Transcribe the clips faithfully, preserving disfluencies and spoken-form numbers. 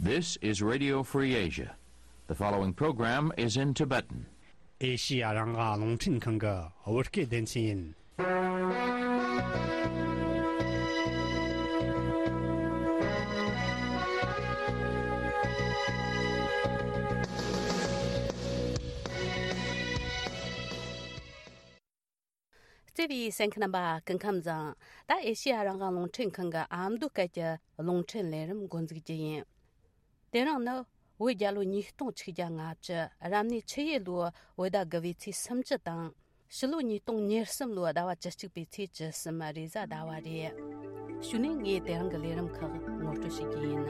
This is Radio Free Asia. The following program is in Tibetan. ཨེ་ཤི་ཡ་རང་དབང་རླུང་འཕྲིན་ཁང་གི་བོད་སྐད་སྡེ་ཚན་ཡིན། བརྩེ་བའི་གསན་མཁན་རྣམ་པ་སྐུ་ཁམས་བཟང་། ད་ཨེ་ཤི་ཡ་རང་དབང་རླུང་འཕྲིན་ཁང་གི་ཨ་མདོ་སྐད་ཀྱི་རླུང་འཕྲིན་ལས་རིམ་འགོ་འཛུགས་རྒྱུ་ཡིན། དེ་རིང་ནི་བོད་རྒྱལ་ལོ་ཉིས་སྟོང་ཆིག་བརྒྱ་ལྔ་བཅུ། རབ་གནས་ཆུ་ཡོས་ལོའི་བོད་ཟླ་དགུ་པའི་ཚེས་སུམ་ཅུ་དང་། ཕྱི་ལོ་ཉིས་སྟོང་ཉེར་གསུམ་ལོའི་ཟླ་བ་བཅུ་གཅིག་པའི་ཚེས་བཅུ་གསུམ་རེས་གཟའ་ཟླ་བ་རེད། གཞུག་ནས་ངས་དེ་རིང་གི་ལས་རིམ་ཁག་ངོ་སྤྲོད་བྱེད་རྒྱུ་ཡིན།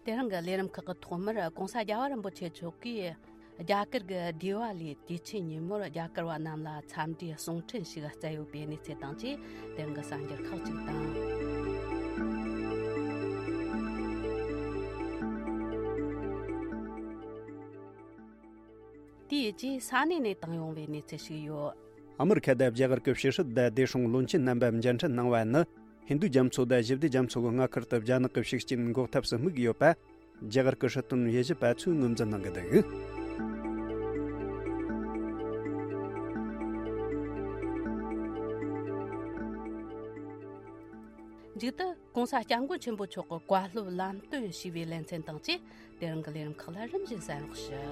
དེ་རིང་གི་ལས་རིམ་ཁག་གི་ཐོག་མར་༸གོང་ས་༸རྒྱལ་བ་རིན་པོ་ཆེ་མཆོག་གིས་རྒྱ་གར་གྱི་དི་ཝ་ལི་དུས་ཆེན་ཉིན་མོར་རྒྱ་གར་བ་རྣམས་ལ་འཚམས་འདྲིའི་གསུང་འཕྲིན་ཞིག་བསྩལ་ཡོད་པའི་གནས་ཚུལ་དང་བཅས། དེ་རིང་གི་གསར་འགྱུར་ཁག་ཅིག་དང་། དེའི་རྗེས་ས་གནས་ནས་བཏང་ཡོང་བའི་གནས་ཚུལ་ཞིག་ཡོད། ཨ་མི་རི་ཁ་དང་རྒྱ་གར་གྱི་ཕྱི་སྲིད་དང་སྡེ་སྲུང་བློན་ཆེན་རྣམ་པ་མཇལ་འཕྲད་གནང་བ་ནི། ཧིན་རྡུ་རྒྱ་མཚོ་དང་ཞི་བདེ་རྒྱ་མཚོ་གི་མངའ་ཁུལ་དུ་རྒྱ་ནག་གི་ཤུགས་རྐྱེན་འགོག་ཐབས་སུ་དམིགས་ཡོད་པ། རྒྱ་གར་གྱི་སྲིད་དོན་དབྱེ་ཞིབ་པ་ཚོས་ངོས་འཛིན་གནང་གི་འདུག། མཇུག་ཏུ་༸གོང་ས་༸སྐྱབས་མགོན་ཆེན་པོ་མཆོག་གི་བཀའ་སློབ་ལམ་སྟོན་ཞུས་པའི་ལེ་ཚན་དང་བཅས། དེ་རིང་གི་ལས་རིམ་ཁག་ལ་རིམ་བཞིན་གསན་རོགས་ཞུ།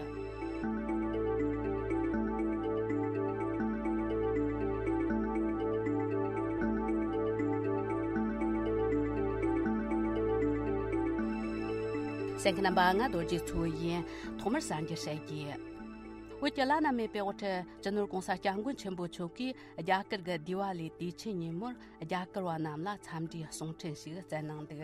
གསན་མཁན་རྣམ་པ། ང་རྡོ་རྗེ་མཚོ་ཡིན། ཐོག་མར་གསར་འགྱུར་བཤད་རྒྱུ། བོད་ཀྱི་བླ་ན་མེད་པའི་དབུ་ཁྲིད་སྤྱི་ནོར་༸གོང་ས་༸སྐྱབས་མགོན་ཆེན་པོ་མཆོག་གིས་རྒྱ་གར་གྱི་དི་ཝ་ལི་དུས་ཆེན་ཉིན་མོར་རྒྱ་གར་བ་རྣམས་ལ་འཚམས་འདྲིའི་གསུང་འཕྲིན་ཞིག་བསྩལ་གནང་འདུག།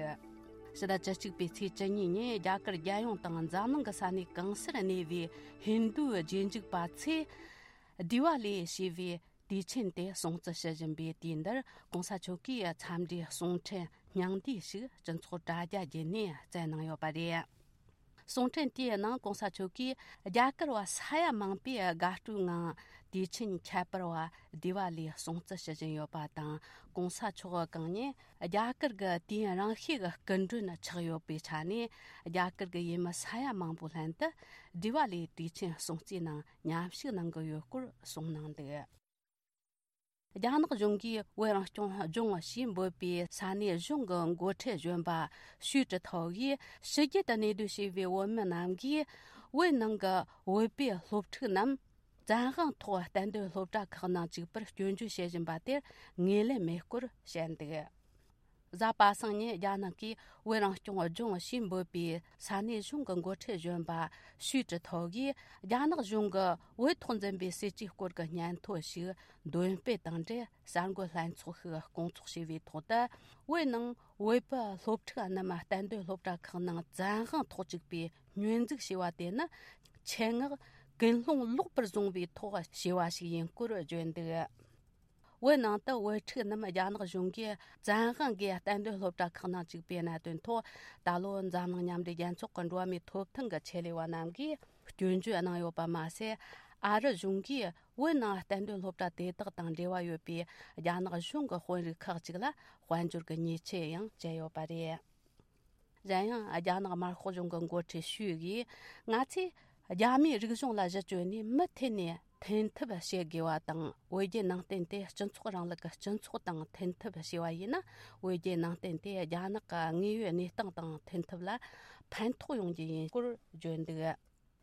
ཕྱི་ཟླ་བཅུ་གཅིག་པའི་ཚེས་བཅུ་གཉིས་ཉིན་རྒྱ་གར་རྒྱལ་ཡོངས་དང་འཛམ་གླིང་གི་ས་གནས་གང་སར་གནས་པའི་ཧིན་རྡུའི་རྗེས་འཇུག་པ་ཚོས་དི་ཝ་ལི་ཞེས་པའི་དུས་ཆེན་དེ་སྲུང་བརྩི་ཞུ་བཞིན་པའི་དུས་འདིར་༸གོང་ས་མཆོག་གིས་འཚམས་འདྲིའི་གསུང་འཕྲིན་སྙིང་བསྡུས་ཤིག་སྤྱི་ཚོགས་དྲ་རྒྱ་བརྒྱུད་ནས་བསྩལ་གནང་ཡོད་པ་རེད། གསུང་འཕྲིན་དེའི་ནང་༸གོང་ས་མཆོག་གིས་རྒྱ་གར་བ་ས་ཡ་མང་པོས་དགའ་སྤྲོའི་ངང་དུས་ཆེན་ཁྱད་པར་བ་དི་ཝ་ལི་སྲུང་བརྩི་ཞུ་བཞིན་ཡོད་པ་དང་། ༸གོང་ས་མཆོག་གང་ཉིད་རྒྱ་གར་གྱི་དུས་ཡུན་རིང་ཤོས་ཀྱི་སྐུ་མགྲོན་ཆགས་ཡོད་པའི་ཆ་ནས། རྒྱ་གར་གྱི་ཡུལ་མི་ས་ཡ་མང་པོའི་ལྷན་དུ་དི་ཝ་ལིའི་དུས་ཆེན་སྲུང་བརྩིའི་ནང་མཉམ་ཞུགས་གནང་གི་ཡོད་སྐོར་གསུངས་གནང་འདུག། རྒྱ་ནག་གཞུང་གིས་བོད་རང་སྐྱོང་ལྗོངས་ཞེས་འབོད་པའི་ས་གནས་གཞུང་གི་འགོ་ཁྲིད་གཞོན་པ་ཞུས་ཀྲི་ཐའོ་ཡིས་ཕྱི་རྒྱལ་དུ་གནས་སྡོད་བྱས་པའི་བོད་མི་རྣམས་ཀྱིས་བོད་ནང་གི་བོད་པའི་སློབ་ཕྲུག་རྣམས་བཙན་དབང་ཐོག་གཏན་སྡོད་སློབ་གྲྭ་ཁག་ནང་བཅུག་པར་སྐྱོན་བརྗོད་བྱེད་བཞིན་པ་དེར་ངོས་ལེན་མེད་སྐོར་བཤད་འདུག། གཟའ་པ་སངས་ཉིན་རྒྱ་ནག་གིས་བོད་རང་སྐྱོང་ལྗོངས་ཞེས་འབོད་པའི་ས་གནས་གཞུང་གི་འགོ་ཁྲིད་གཞོན་པ་ཞུས་ཀྲི་ཐའོ་ཡིས་རྒྱ་ནག་གཞུང་གིས་བོད་ཐོག་འཛིན་པའི་སྲིད་ཇུས་སྐོར་གྱི་སྙན་ཐོ་ཞིག་འདོན་སྤེལ་དང་འབྲེལ། གསར་འགོད་ལྷན་ཚོགས་ཤིག་སྐོང་ཚོགས་བྱས་པའི་ཐོག་ཏུ། བོད་ནང་བོད་པའི་སློབ་ཕྲུག་རྣམས་གཏན་སྡོད་སློབ་གྲྭ་ཁག་ནང་བཙན་དབང་ཐོག་བཅུག་པའི་སྙོན་འཛུགས་བྱས་པ་དེ་ནི་ཆེད་མངགས་ཀུན་སློང་ལོག་པར་བཟུང་བའི་ཐོག་བྱས་པ་ཞིག་ཡིན་སྐོར་བརྗོད་འདུག། བོད་ནང་དུ་བོད་ཕྲུག་རྣམས་རྒྱ་ནག་གཞུང་གིས་བཙན་དབང་གིས་གཏན་སྡོད་སློབ་གྲྭ་ཁག་ནང་བཅུག་པའི་གནད་དོན་ཐོག་ད་ལོ་འཛམ་གླིང་མཉམ་འབྲེལ་རྒྱལ་ཚོགས་ཀྱི་འགྲོ་བ་མིའི་ཐོབ་ཐང་གི་ཆེད་ལས་པ་རྣམས་ཀྱིས་སྐྱོན་བརྗོད་གནང་ཡོད་པ་མ་ཟད། ཨ་རི་གཞུང་གིས་བོད་ནང་གཏན་སྡོད་སློབ་གྲྭ་དེ་དག་དང་འབྲེལ་བ་ཡོད་པའི་རྒྱ་ནག་གཞུང་གི་དཔོན་རིགས་ཁག་ཅིག་ལ་དཔལ་འབྱོར་གྱི་ཉེས་ཆད་ཡང་བཅད་ཡོད་པ་རེད། གཞན་ཡང་རྒྱ་ནག་དམར་ཤོག་གཞུང་གི་འགོ་ཁྲིད་ཞུས་ཀྱིས། ང་ཚོས་རྒྱ་མིའི་རིག་གཞུང་ལ་གཞི་བཅོལ་ནས་མུ་མཐུད་ནས་འཐེན་ཐབས་བྱེད་དགོས་པ་དང་། བོད་བརྒྱུད་ནང་བསྟན་དེ་སྤྱི་ཚོགས་རིང་ལུགས་ཀྱི་སྤྱི་ཚོགས་དང་འཐེན་ཐབས་བྱས་པ་ཡིན་ན། བོད་བརྒྱུད་ནང་བསྟན་དེ་རྒྱ་ནག་གི་དངོས་ཡོད་གནས་སྟངས་དང་འཐེན་ཐབས་ལ་ཕན་ཐོགས་ཡོང་རྒྱུ་ཡིན་སྐོར་བརྗོད་འདུག།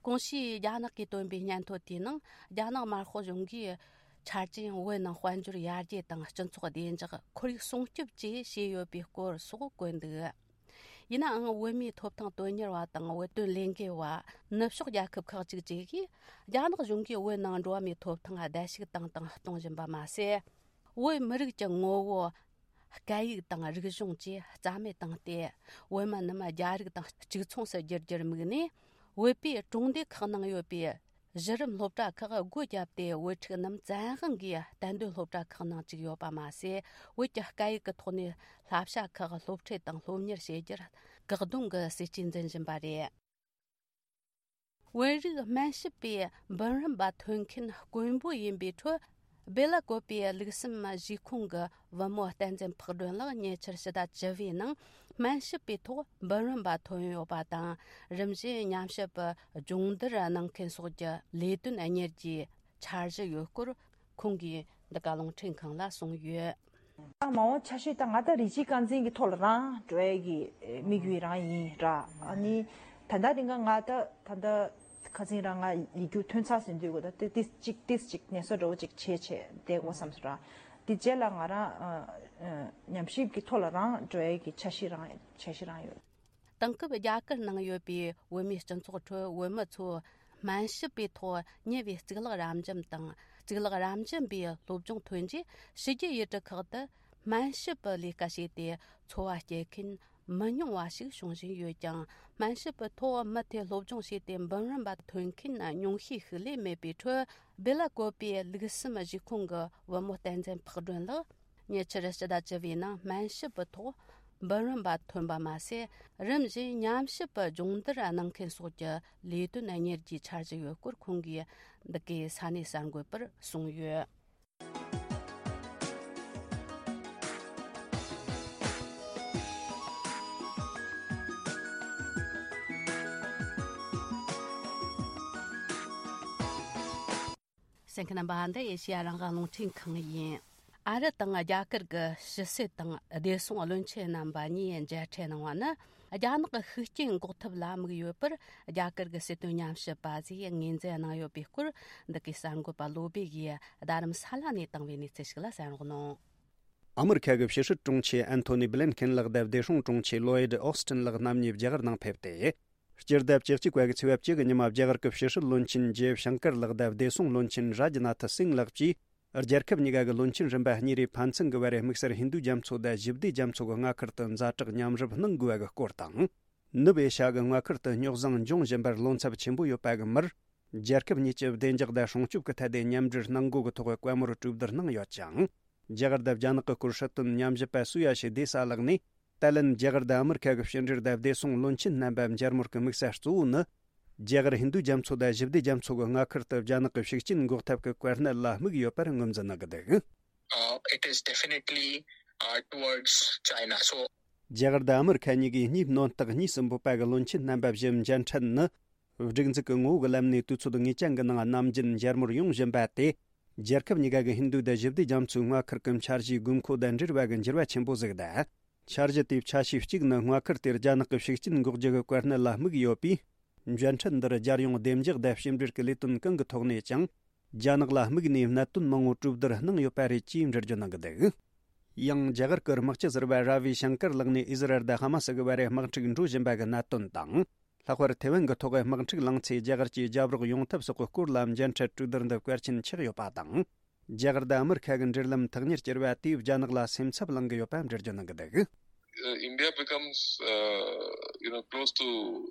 གོང་ཞུས་རྒྱ་ནག་གིས་བཏོན་པའི་སྙན་ཐོ་དེའི་ནང་། རྒྱ་ནག་དམར་ཤོག་གཞུང་གིས་ཆ་རྐྱེན་བོད་ནང་དཔལ་འབྱོར་ཡར་རྒྱས་དང་སྤྱི་ཚོགས་བདེ་འཇགས། ཁོར་ཡུག་སྲུང་སྐྱོབ་བཅས་བྱས་ཡོད་པའི་སྐོར་སོགས་བཀོད་འདུག། ཡིན་ནའང་། བོད་མིའི་ཐོབ་ཐང་དོན་གཉེར་བ་དང་། བོད་དོན་ལས་འགུལ་བ། ནུབ་ཕྱོགས་རྒྱལ་ཁབ་ཁག་ཅིག་བཅས་ཀྱིས་རྒྱ་ནག་གཞུང་གིས་བོད་ནང་འགྲོ་བ་མིའི་ཐོབ་ཐང་བརྡལ་བཤིག་བཏང་དང་གཏོང་བཞིན་པ་མ་ཟད། བོད་མི་རིགས་ཀྱི་ངོ་བོ། སྐད་ཡིག་དང་རིག་གཞུང་བཅས་རྩ་མེད་བཏང་སྟེ། བོད་མི་རྣམས་རྒྱ་རིགས་དང་གཅིག་མཚུངས་སུ་བསྒྱུར་རྒྱུར་དམིགས་ནས། བོད་པའི་གྲོང་སྡེ་ཁག་ནང་ཡོད་པའི་གཞི་རིམ་སློབ་གྲྭ་ཁག་སྒོ་བརྒྱབ་སྟེ། བོད་ཕྲུག་རྣམས་བཙན་དབང་གིས་གཏན་སྡོད་སློབ་གྲྭ་ཁག་ནང་བཅུག་ཡོད་པ་མ་ཟད། བོད་ཀྱི་སྐད་ཡིག་གི་ཐོག་ནས་བསླབ་བྱ་ཁག་སློབ་ཁྲིད་དང་སློབ་གཉེར་བྱེད་རྒྱུར་བཀག་སྡོམ་གྱི་སྲིད་ཇུས་འཛིན་བཞིན་པ་རེད། བོད་རིགས་སྨན་ཞབས་པའི་འབུམ་རམས་པ་ཐོན་མཁན་དཀོན་པོ་ཡིན་པའི་ཁྲོད། སྦེ་ལ་ཀོ་པའི་ལུགས་གསུམ་གཞིས་ཁོངས་ཀྱི་བུ་མོ་བསྟན་འཛིན་ཕག་སྒྲོན་ལགས་ཉེ་ཆར་ཕྱི་ཟླ་བཅུ་བའི་ནང་སྨན་ཞབས་པའི་ཐོག་འབུམ་རམས་པ་ཐོན་ཡོད་པ་དང་། རིམ་བཞིན་ཉམས་ཞིབ་པའི་སྦྱོང་བརྡར་གནང་མཁན་སོགས་ཀྱི་ལས་དོན་གཉེར་རྒྱུའི་འཆར་གཞི་ཡོད་སྐོར་ཁོང་གིས་འདི་ག་རླུང་འཕྲིན་ཁང་ལ་གསུངས་ཡོད། ད་མ་འོངས་འཆར་གཞི་ད་ང་ད་རིགས་གཅིག་རྐང་འཛིན་གྱི་ཐོག་ལ་རང་འགྲོ་ཡས་ཀྱི་དམིགས་ཡུལ་རང་ཡིན་ར། ཨ་ནི་ད་ལྟ་དེ་ག་ང་ད་ད་ལྟ་ཁ་སང་རང་ང་ཡིག་རྒྱུགས་ཐོན་ཚར་ཟིན་དུས་གོ་ད་ཏི་ཏིས་གཅིག་ཏིས་གཅིག་ནད་གསོ་འདྲ་བོ་གཅིག་བྱས་བྱས་བསྡད་དགོས་བསམ་སོང་ར། དེ་རྗེས་ལ་ང་རང་ཨ་ཨ་ཉམས་ཞིབ་ཀྱི་ཐོག་ལ་རང་འགྲོ་ཡས་ཀྱི་འཆར་གཞི་རང་འཆར་གཞི་རང་ཡོད། དེང་སྐབས་རྒྱ་གར་ནང་ཡོད་པའི་བོད་མིའི་སྤྱི་ཚོགས་ཁྲོད་བོད་མི་ཚོས་སྨན་ཞབས་པའི་ཐོག་ཉེ་བའི་གཙུག་ལག་རབ་འབྱམས་དང་གཙུག་ལག་རབ་འབྱམས་པའི་སློབ་སྦྱོང་ཐོན་རྗེས་ཕྱི་རྒྱལ་ཡུལ་གྲུ་ཁག་ཏུ་སྨན་ཞབས་པའི་ལས་ཀ་བྱས་ཏེ་འཚོ་བ་སྐྱེལ་མཁན་མི་ཉུང་བ་ཞིག་བྱུང་བཞིན་ཡོད་ཀྱང་། སྨན་ཞབས་པའི་ཐོག་མུ་མཐུད་སློབ་སྦྱོང་བྱས་ཏེ་འབུམ་རམས་པ་ཐོན་མཁན་ཉུང་ཤས་ཤིག་ལས་མེད་པའི་ཁྲོད། སྦེ་ལ་ཀོ་པའི་ལུགས་གསུམ་གཞིས་ཁོངས་ཀྱི་བུ་མོ་བསྟན་འཛིན་ཕག་སྒྲོན་ལགས་ཉེ་ཆར་ཕྱི་ཟླ་བཅུ་བའི་ནང་སྨན་ཞབས་པའི་ཐོག་འབུམ་རམས་པ་ཐོན་པ་མ་ཟད། རིམ་བཞིན་ཉམས་ཞིབ་པའི་སྦྱོང་བརྡར་གནང་མཁན་སོགས་ཀྱི་ལས་དོན་གཉེར་རྒྱུའི་འཆར་གཞི་ཡོད་སྐོར་ཁོང་གིས་འདི་གའི་ས་གནས་གསར་འགོད་པར་གསུངས་ཡོད། གསན་མཁན་རྣམ་པ། འདི་ཨེ་ཤེ་ཡ་རང་དབང་རླུང་འཕྲིན་ཁང་ཡིན། ཨ་རི་དང་རྒྱ་གར་གྱི་ཕྱི་སྲིད་དང་བདེ་སྲུང་བློན་ཆེན་རྣམ་པ་གཉིས་མཇལ་འཕྲད་གནང་བ་ནི། རྒྱ་ནག་གི་ཤུགས་རྐྱེན་འགོག་ཐབས་ལ་དམིགས་ཡོད་པར་རྒྱ་གར་གྱི་སྲིད་དོན་ཉམས་ཞིབ་པ་ཚོས་ངོས་འཛིན་གནང་ཡོད་པའི་སྐོར། འདི་གའི་གསར་འགོད་པ་བློ་བྷེ་ཡིས་རྡ་རམ་ས་ལ་ནས་བཏང་བའི་གནས་ཚུལ་ཞིག་ལ་གསན་རོགས་གནང་། ཨ་མི་རི་ཁ་གི་ཕྱི་སྲིད་དྲུང་ཆེ་ཨན་ཐོ་ནི་བྷི་ལན་ཁེན་ལགས་དང་བདེ་སྲུང་དྲུང་ཆེ་ལོ་ཡིད་ཨོ་སི་ཏིན་ལགས་རྣམ་གཉིས་རྒྱ་གར་ནང་ཕེབས་ཏེ། སྤྱི་ཟླ་བཅུ་གཅིག་པ་གི་ཚེས་པ་བཅུ་གི་ཉི་མ་རྒྱ་གར་གྱི་ཕྱི་སྲིད་བློན་ཆེན་ཇེ་ཤང་ཀར་ལགས་དང་བདེ་སྲུང་བློན་ཆེན་རཱ་ཇི་ནཱ་ཐི་སིང་ལགས་ཀྱིས། རྒྱལ་ཁབ་གཉིས་ཀ་གི་བློན་ཆེན་རིམ་པ་གཉིས་རེས་ཕན་ཚུན་གྱི་བར་དམིགས་བསལ་ཧིན་རྡུ་རྒྱ་མཚོ་དང་ཞི་བདེ་རྒྱ་མཚོ་གི་མངའ་ཁུལ་དུ་ཛ་དྲག་མཉམ་རུབ་གནང་དགོས་པ་གི་སྐོར་དང་། ནུབ་ཨེ་ཤ་གི་མངའ་ཁུལ་དུ་རྙོག་ཟིང་འབྱུང་བཞིན་པར་བློ་འཚབ་ཆེན་པོ་ཡོད་པ་གི་མུར། རྒྱལ་ཁབ་གཉིས་ཀྱི་བདེ་འཇགས་དང་སྲུང་སྐྱོབ་ཀྱི་ཐད་དེ་མཉམ་འབྲེལ་གནང་དགོས་ཀྱི་ཐོག་བཀའ་མོལ་གྲོས་བསྡུར་གནང་ཡོད་ཅིང་། རྒྱ་གར་དང་རྒྱ་ནག་གི་སྐོར་སྲིད་དོན་ཉམས་ཞིབ་པ་སུ་ཡ་ཤི་དེ་ས་ལགས་ནས། ཏཱ་ལན་རྒྱ་གར་དང་ཨ་མི་རི་ཁ་གི་ཕྱི་འབྲེལ་དང་བདེ་སྲུང་བློན་ཆེན་རྣམ་པ་མཇལ་མོལ་གྱི་དམིགས་ས་གཙོ་བོ་ནི། རྒྱ་གར་ཧིན་རྡུ་རྒྱ་མཚོ་དང་ཞི་བདེ་རྒྱ་མཚོ་གི་མངའ་ཁུལ་དུ་རྒྱ་ནག་གི་ཤུགས་རྐྱེན་འགོག་ཐབས་ཀྱི་གོ་གནས་ལ་དམིགས་ཡོད་པར་ངོས་འཛིན་གནང་གི་འདུག། Uh, it is definitely, uh, towards China. So རྒྱ་གར་དང་ཨ་མི་རི་ཁ་གཉིས་ཀྱིས་གཉིས་སྣོན་རྟགས་གཉིས་སུ་འབོད་པ་གི་བློན་ཆེན་རྣམ་པ་བཞི་མཇལ་འཕྲད་ནི། སྒྲིག་འཛུགས་ཀྱི་ངོ་བོ་གི་ལམ་ནས་དུས་ཚོད་ངེས་ཅན་གྱི་ནང་ནམ་རྒྱུན་མཇལ་མོལ་ཡོང་བཞིན་པ་དེ། རྒྱལ་ཁབ་གཉིས་ཀ་གི་ཧིན་རྡུ་དང་ཞི་བདེ་རྒྱ་མཚོའི་མངའ་ཁུལ་གྱི་འཆར་གཞིའི་དགོས་མཁོ་དང་འབྲེལ་བ་གི་འགྱུར་བ་ཆེན་པོ་ཟིག་དང་། འཆར་གཞི་དེའི་ཆ་ཤས་གཅིག་ནི་མངའ་ཁུལ་དེར་རྒྱ་ནག་གི་ཤུགས་རྐྱེན་འགོག་རྒྱུ་གི་གོ་གནས་ལ་དམིགས་ཡོད་པས། མཇལ་འཕྲད་འདིར་རྒྱལ་ཡོངས་བདེ་འཇགས་དང་ཕྱི་འབྲེལ་གྱི་ལས་དོན་གང་གི་ཐོག་ནས་ཀྱང་། རྒྱ་ནག་ལ་དམིགས་ནས་གནད་དོན་མང་བོ་གྲོས་བསྡུར་གནང་ཡོད་པ་རེད་ཅེས་འགྲེལ་བརྗོད་གནང་གི་འདུག། ཡང་རྒྱ་གར་གྱི་དམག་སྤྱི་ཟུར་པ་ར་བི་ཤང་ཀར་ལགས་ནས་ཨི་ཟི་རལ་དང་ཧ་མ་སི་གི་བར་དམག་འཁྲུག་འགྲོ་བཞིན་པ་གི་གནད་དོན་དང་། ལྷག་པར་ཐེ་ཝན་གྱི་ཐོག་དམག་འཁྲུག་ལངས་ཚེ་རྒྱ་གར་གྱིས་རྒྱབ་རོགས་ཡོང་ཐབས་སོགས་ཀྱི་སྐོར་ལ་མཇལ་འཕྲད་གྲོས་བསྡུར་འདི་གལ་ཆེན་ཆགས་ཡོད་པ་དང་། རྒྱ་གར་དང་ཨ་མི་རི་ཁ་གི་འབྲེལ་ལམ་ཐག་ཉེར་གྱུར་བ་དེས་རྒྱ་ནག་ལ་སེམས་འཚབ་ལངས་ཀྱི་ཡོད་པ་འགྲེལ་བརྗོད་གནང་གི་འདུག། Uh, India becomes, uh, you know, close to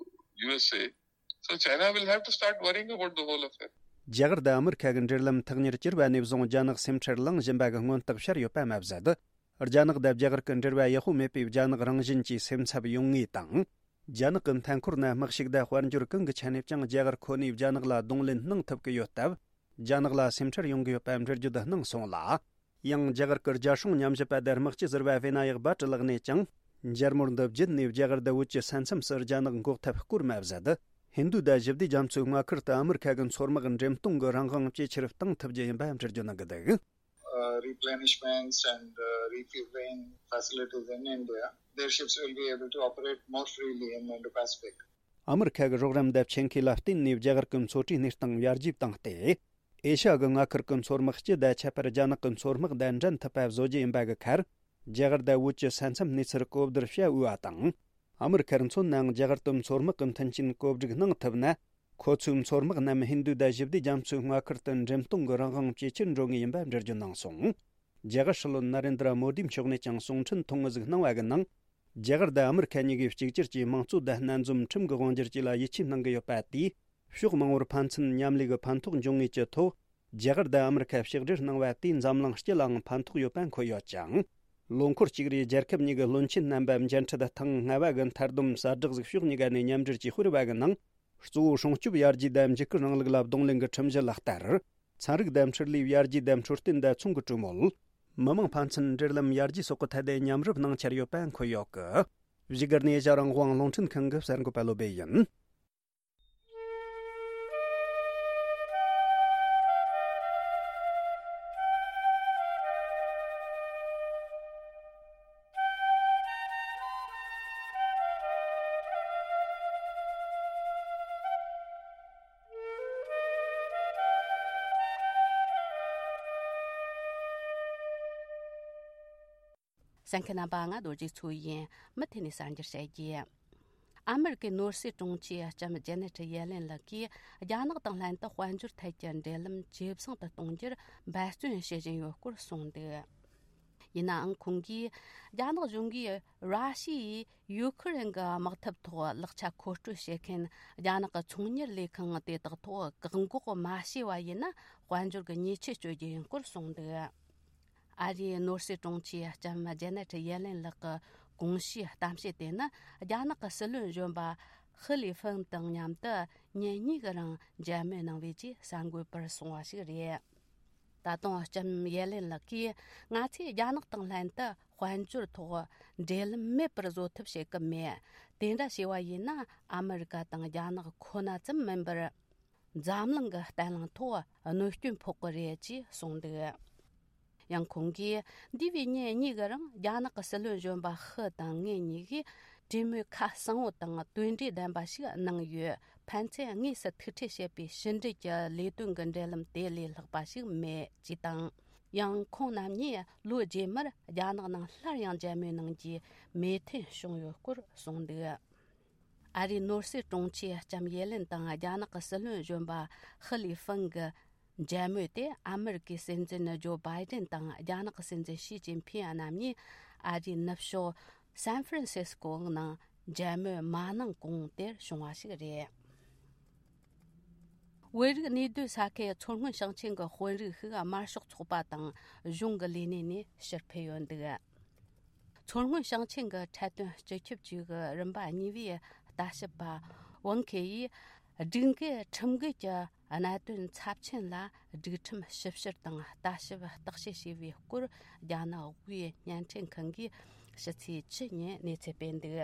U S A. So China will have to start worrying about the whole affair. རྒྱ་གར་དང་ཨ་མི་རི་ཁ་གི་འབྲེལ་ལམ་ཐག་ཉེར་གྱུར་བ་ནས་བཟུང་རྒྱ་ནག་སེམས་ཁྲལ་ལངས་བཞིན་པ་གི་མངོན་རྟགས་ཤར་ཡོད་པ་མ་ཟད། རྒྱ་ནག་དང་རྒྱ་གར་གྱི་འབྲེལ་བ་ཡག་པོ་མེད་པས་རྒྱ་ནག་རང་བཞིན་གྱིས་སེམས་འཚབ་ཡོང་ངེས་དང་། རྒྱ་ནག་གི་མཐའ་འཁོར་ན་དམག་ཤུགས་དང་དཔལ་འབྱོར་གང་གི་ཆ་ནས་ཀྱང་རྒྱ་གར་ཁོ་ནས་རྒྱ་ནག་ལ་གདོང་ལེན་གནང་ཐུབ་ཀྱི་ཡོད་སྟབས། རྒྱ་ནག་ལ་སེམས་ཁྲལ་ཡོང་གི་ཡོད་པ་འགྲེལ་བརྗོད་གནང་སོང་ལ། ཡང་རྒྱ་གར་གྱི་རྒྱལ་སྲུང་ཉམས་ཞིབ་པ་དང་དམག་སྤྱི་ཟུར་པ་ཝེ་ན་ཡག་བྷ་ཊ་ལགས་ནས་ཀྱང་། མཇལ་མོལ་འདི་བརྒྱུད་ནས་རྒྱ་གར་དང་བོད་ཀྱི་ས་མཚམས་སུ་རྒྱ་ནག་འགོག་ཐབས་སྐོར་མ་ཟད། ཧིན་རྡུ་དང་ཞི་བདེ་རྒྱ་མཚོའི་མངའ་ཁུལ་དུ་ཨ་མི་རི་ཁ་གི་མཚོ་དམག་འགྲེམས་གཏོང་གི་རང་དབང་ཇེ་ཆེར་གཏང་ཐུབ་རྒྱུ་ཡིན་པ་འགྲེལ་བརྗོད་གནང་གི་འདུག། Uh, replenishments and, uh, refueling facilities in India, their ships will be able to operate more freely in Indo-Pacific. ཨ་མི་རི་ཁ་གི་རོགས་རམ་དང་ཆེད་མཁས་ལ་བརྟེན་ནས་རྒྱ་གར་གྱི་མཚོ་གྲུའི་གནས་སྟངས་ཡར་རྒྱས་བཏང་སྟེ། ཨེ་ཤ་ཡ་གི་མངའ་ཁུལ་གྱི་མཚོ་དམག་སྤྱི་དང་ཁྱད་པར་རྒྱ་ནག་གི་མཚོ་དམག་དང་འགྲན་ཐུབ་པ་བཟོ་རྒྱུ་ཡིན་པ་གི་ཁར། རྒྱ་གར་དང་བོད་ཀྱི་ས་མཚམས་གནས་ཚུལ་གོ་བསྡུར་བྱ་འོས་པ་དང་། ཨ་མི་རི་ཁར་མཚོན་ནའང་རྒྱ་གར་དུ་མཚོ་དམག་གི་མཐུན་རྐྱེན་བཀོད་སྒྲིག་གནང་ཐུབ་ན། ཁོ་ཚོའི་མཚོ་དམག་རྣམས་ཧིན་རྡུ་དང་ཞི་བདེ་རྒྱ་མཚོའི་མངའ་ཁུལ་དུ་འགྲེམས་གཏོང་གི་རང་དབང་ཇེ་ཆེར་འགྲོ་ངེས་ཡིན་པ་འགྲེལ་བརྗོད་གནང་སོང་། རྒྱ་གར་སྲིད་བློན་ན་རེན་དྲ་མོ་དིའི་མཆོག་ནས་ཀྱང་གསུང་འཕྲིན་ཐུང་ངུ་ཟིག་གནང་བ་གི་ནང་། རྒྱ་གར་དང་ཨ་མི་རི་ཁ་གཉིས་ཀས་གཅིག་གྱུར་གྱིས་དམངས་གཙོ་དང་སྣ་འཛོམས་ཁྲིམས་ཀྱི་དབང་སྒྱུར་བཅས་ལ་ཡིད་ཆེས་གནང་གི་ཡོད་པ་དེས། ཕྱོགས་མང་པོར་ཕན་ཚུན་མཉམ་ལས་ཀྱི་ཕན་ཐོགས་འབྱུང་ངེས་ཀྱི་ཐོག་རྒྱ་གར་དང་ཨ་མི་རི་ཁ་ཕྱག་སྦྲེལ་གནང་བ་དེས་འཛམ་གླིང་སྤྱི་ལའང་ཕན་ཐོགས་ཡོད་པ་འཁོད་ཡོད་ཅིང་། ལོ་འཁོར་གཅིག་རེའི་རྒྱལ་ཁབ་གཉིས་ཀྱི་བློན་ཆེན་རྣམ་པ་མཇལ་འཕྲད་ཐེངས་ལྔ་བ་གི་མཐར་བསྡོམས་གསལ་བསྒྲགས་ཤིག་ཕྱོགས་གཉིས་ཀ་ནས་མཉམ་འབྲེལ་གྱིས་སྤེལ་བ་གི་ནང་། གཙོ་བོ་སྲུང་སྐྱོབ་ཡར་རྒྱས་དང་འཇིགས་སྐུལ་རིང་ལུགས་ལ་གདོང་ལེན་གྱི་ཁྲིམས་གཞི་ལག་བསྟར། ཚན་རིག་ལྡེམ་འཕྲུལ་ལས་ཡར་རྒྱས་ལྡེམ་འཕྲུལ་བསྟུན་བདེ་ཚོང་གི་གྲོས་མོལ། མི་དམངས་ཕན་ཚུན་འབྲེལ་ལམ་ཡར་རྒྱས་སོགས་ཀྱི་ཐད་དེ་མཉམ་རུབ་གནང་འཆར་ཡོད་པ་འཁོད་ཡོད་ཀི། བཞུགས་སྒར་ནས་ཨེ་ཤ་རང་དབང་རླུང་འཕྲིན་ཁང་གི་གསར་འགོད་པ་བློ་སྦེ་ཡིན། གསན་མཁན་རྣམ་པ། ང་རྡོ་རྗེ་མཚོ་ཡིན། མུ་མཐུད་ནས་གསར་འགྱུར་བཤད་རྒྱུ། ཨ་མེ་རི་ཀའི་ནོར་སྲིད་དྲུང་ཆེ་ལྕམ་ཇེ་ནེ་ཊི་ཡེ་ལེན་ལགས་ཀྱིས་རྒྱ་ནག་དང་ལྷན་དུ་དཔལ་འབྱོར་ཐད་ཀྱི་འབྲེལ་ལམ་ཇེ་བཟང་དུ་གཏོང་རྒྱུར་འབད་བརྩོན་བྱེད་བཞིན་ཡོད་སྐོར་གསུངས་འདུག་ཡིན་ནའང་ཁོང་གིས། རྒྱ་ནག་གཞུང་གིས་ར་ཤི་ཡས་ཡུ་ཁུ་རེན་གྱི་དམག་འཐབ་ཐོག་ལག་ཆ་མཁོ་སྤྲོད་བྱེད་མཁན་རྒྱ་ནག་གི་ཚོང་གཉེར་ལས་ཁང་དེ་དག་ཐོག་བཀག་འགོག་མ་བྱས་པ་ཡིན་ན། དཔལ་འབྱོར་གྱི་ཉེས་ཆད་གཅོད་རྒྱུ་ཡིན་སྐོར་གསུངས་འདུག་ཨ་རིའི་ནོར་སྲིད་དྲུང་ཆེ་ལྕམ་ཇེ་ནེ་ཊི་ཡེ་ལེན་ལགས་ཀྱི་གོང་ཞུས་གཏམ་བཤད་དེ་ནི། རྒྱ་ནག་གི་སྲིད་བློན་གཞོན་པ་ཧི་ལི་ཧྥིན་དང་མཉམ་དུ་ཉིན་གཉིས་ཀྱི་རིང་མཇལ་མོལ་གནང་བའི་རྗེས་གསར་འགོད་པར་གསུངས་པ་ཞིག་རེད། ད་དུང་ལྕམ་ཡེ་ལེན་ལགས་ཀྱིས། ང་ཚོས་རྒྱ་ནག་དང་ལྷན་དུ་དཔལ་འབྱོར་ཐོག་འབྲེལ་ལམ་མེད་པར་བཟོ་ཐབས་བྱེད་ཀྱི་མེད། དེ་འདྲ་བྱས་པ་ཡིན་ན། ཨ་མེ་རི་ཀ་དང་རྒྱ་ནག་ཁོ་ན་ཙམ་མིན་པར། འཛམ་གླིང་གི་བརྟན་ལྷིང་ཐོག་གནོད་སྐྱོན་ཕོག་གི་རེད་ཅེས་གསུངས་འདུག་ཡང་ཁོང་གིས། འདས་པའི་ཉིན་གཉིས་ཀྱི་རིང་རྒྱ་ནག་གི་སྲིད་བློན་གཞོན་པ་ཧི་དང་ངེད་གཉིས་ཀྱིས་གྲོས་མོལ་ཁ་གསལ་པོ་དང་དོན་འབྲས་ལྡན་པ་ཞིག་གནང་ཡོད། ཕན་ཚུན་དངོས་སུ་ཐུག་འཕྲད་བྱེད་པའི་ཕྱི་འབྲེལ་གྱི་ལས་དོན་གྱི་འབྲེལ་ལམ་དེ་ལས་ལྷག་པ་ཞིག་མེད་ཅེས་དང་། ཡང་ཁོང་རྣམ་གཉིས་ལོ་རྗེས་མར་རྒྱ་ནག་ནང་སླར་ཡང་མཇལ་མོལ་གནང་རྒྱུའི་མོས་མཐུན་བྱུང་ཡོད་སྐོར་གསུངས་འདུག་ཨ་རིའི་ནོར་སྲིད་དྲུང་ཆེ་ལྕམ་ཡེ་ལེན་དང་རྒྱ་ནག་གི་སྲིད་བློན་གཞོན་པ་ཧི་ལི་ཧྥིན་གྱི་མཇལ་མོལ་དེ། ཨ་མེ་རི་ཀའི་སྲིད་འཛིན་ཇོ་བྷའི་ཏན་དང་རྒྱ་ནག་གི་སྲིད་འཛིན་ཞི་ཅིན་ཕིན་རྣམ་གཉིས་ཨ་རིའི་ནུབ་ཕྱོགས་སན་ཧྥ་རན་སིས་ཀོ་ནང་མཇལ་མོལ་མ་གནང་གོང་དེར་བྱུང་བ་ཞིག་རེད། བོད་རིགས་གནས་སྡོད་ས་ཁུལ་མཚོ་སྔོན་ཞིང་ཆེན་གྱི་དཔོན་རིགས་ཤིག་དམར་ཤོག་ཚོགས་པ་དང་གཞུང་གི་ལས་གནས་ནས་ཕྱིར་ཕུད་ཡོད་འདུག་མཚོ་སྔོན་ཞིང་ཆེན་གྱི་འཕྲལ་བསྟུན་སྤྱི་ཁྱབ་ཅུས་ཀྱི་རིམ་པ་གཉིས་པའི་ལྟ་ཞིབ་པ་ཝང་ཁེ་ཡིས། སྒྲིག་འགལ་ཁྲིམས་འགལ་གྱི་གནད་དོན་ཚབས་ཆེན་ལ་སྒྲིག་ཁྲིམས་ཞིབ་བཤེར་དང་ལྟ་ཞིབ་བརྟག་དཔྱད་བྱས་པའི་སྐོར། རྒྱ་ནག་དབུས་བརྙན་འཕྲིན་ཁང་གིས་ཕྱི་ཚེས་བཅུ་ཉིན་གནས་ཚུལ་སྤེལ་འདུག་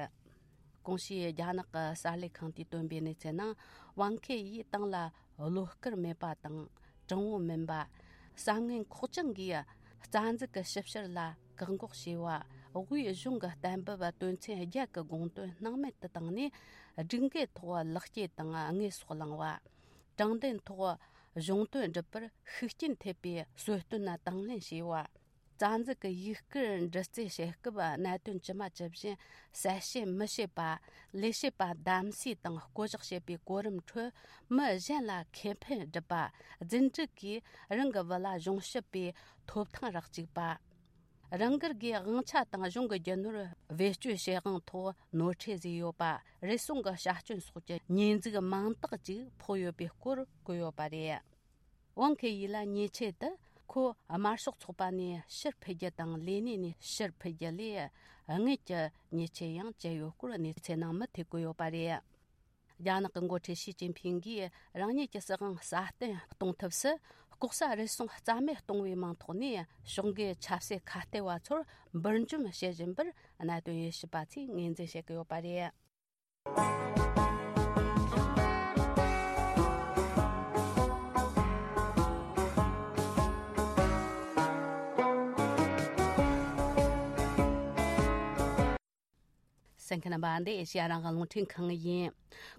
གོང་ཞུས་རྒྱ་ནག་གི་གསར་ལས་ཁང་དུས་བཏོན་པའི་གནས་ཚུལ་ནང་། ཝང་ཁེ་ཡིས་ཏང་ལ་བློ་དཀར་མེད་པ་དང་། དྲང་བོ་མིན་པ། བསམ་ངན་ཁོག་བཅངས་ཀྱིས་རྩ་འཛུགས་ཀྱི་ཞིབ་བཤེར་ལ་བཀག་འགོག་བྱས་པ། དབུས་གཞུང་གི་གཏན་འབེབས་དོན་ཚན་བརྒྱད་ཀྱི་དགོངས་དོན་སྣང་མེད་དུ་བཏང་ནས། སྒྲིག་འགལ་ཐོག་ལག་སྐྱེས་དང་དངོས་ཟོག་བླངས་པ། དྲང་བདེན་ཐོག་གཞུང་དོན་སྒྲུབ་པར་ཤུགས་རྐྱེན་ཐེབས་པའི་གསོལ་སྟོན་དང་དང་ལེན་བྱས་པ། རྩ་འཛུགས་ཀྱི་ཡིག་སྐུར་འདྲི་རྩད་བྱེད་སྐབས་གནད་དོན་ཇི་མ་ཇི་བཞིན་གསལ་བཤད་མི་བྱེད་པ། ལས་བྱེད་པ་གདམ་གསེས་དང་བསྐོ་གཞག་བྱེད་པའི་གོ་རིམ་ཁྲོད་མི་གཞན་ལ་ཁེ་ཕན་སྒྲུབ་པ། རྫུ་འཕྲུལ་གྱིས་རང་གི་བུ་ལ་གཞུང་ཞབས་པའི་ཐོབ་ཐང་རག་བཅུག་པ། རང་སྒེར་གྱི་དབང་ཆ་དང་གཞུང་གི་རྒྱུ་ནོར་བེད་སྤྱོད་བྱེད་དབང་ཐོག་ནོར་འཁྲུལ་བཟོས་ཡོད་པ། རེ་ཟུང་གི་བྱ་སྐྱོན་སོགས་ཀྱི་ཉེས་འཛུགས་མང་དག་ཅིག་ཕོག་ཡོད་པའི་སྐོར་བཀོད་ཡོད་པ་རེད། ཝང་ཁེ་ཡི་ལ་ཉེས་ཆད་དུ་ཁོ་དམར་ཤོག་ཚོགས་པ་ནས་ཕྱིར་ཕུད་རྒྱུ་དང་ལས་གནས་ནས་ཕྱིར་ཕུད་རྒྱུ་ལས་དངུལ་གྱི་ཉེས་ཆད་ཡང་བཅད་ཡོད་སྐོར་གནས་ཚུལ་ནང་མུ་མཐུད་བཀོད་ཡོད་པ་རེད། རྒྱ་ནག་གི་འགོ་ཁྲིད་ཞི་ཅིན་ཕིང་གིས་རང་ཉིད་ཀྱི་སྲིད་དབང་སྲ་བརྟན་གཏོང་ཐབས་སུ། ལྐོག་ཟ་རུལ་སུངས་རྩ་མེད་གཏོང་བའི་མིང་ཐོག་ནས་ཕྱོགས་འགལ་ཆབ་སྲིད་ཁ་གཏད་པ་ཚོར་འབུར་འཇོམས་བྱེད་བཞིན་པར་གནད་དོན་དབྱེ་ཞིབ་པ་ཚོས་ངོས་འཛིན་བྱེད་ཀྱི་ཡོད་པ་རེད། གསན་མཁན་རྣམ་པ། འདི་ཨེ་ཤེ་ཡ་རང་དབང་རླུང་འཕྲིན་ཁང་ཡིན།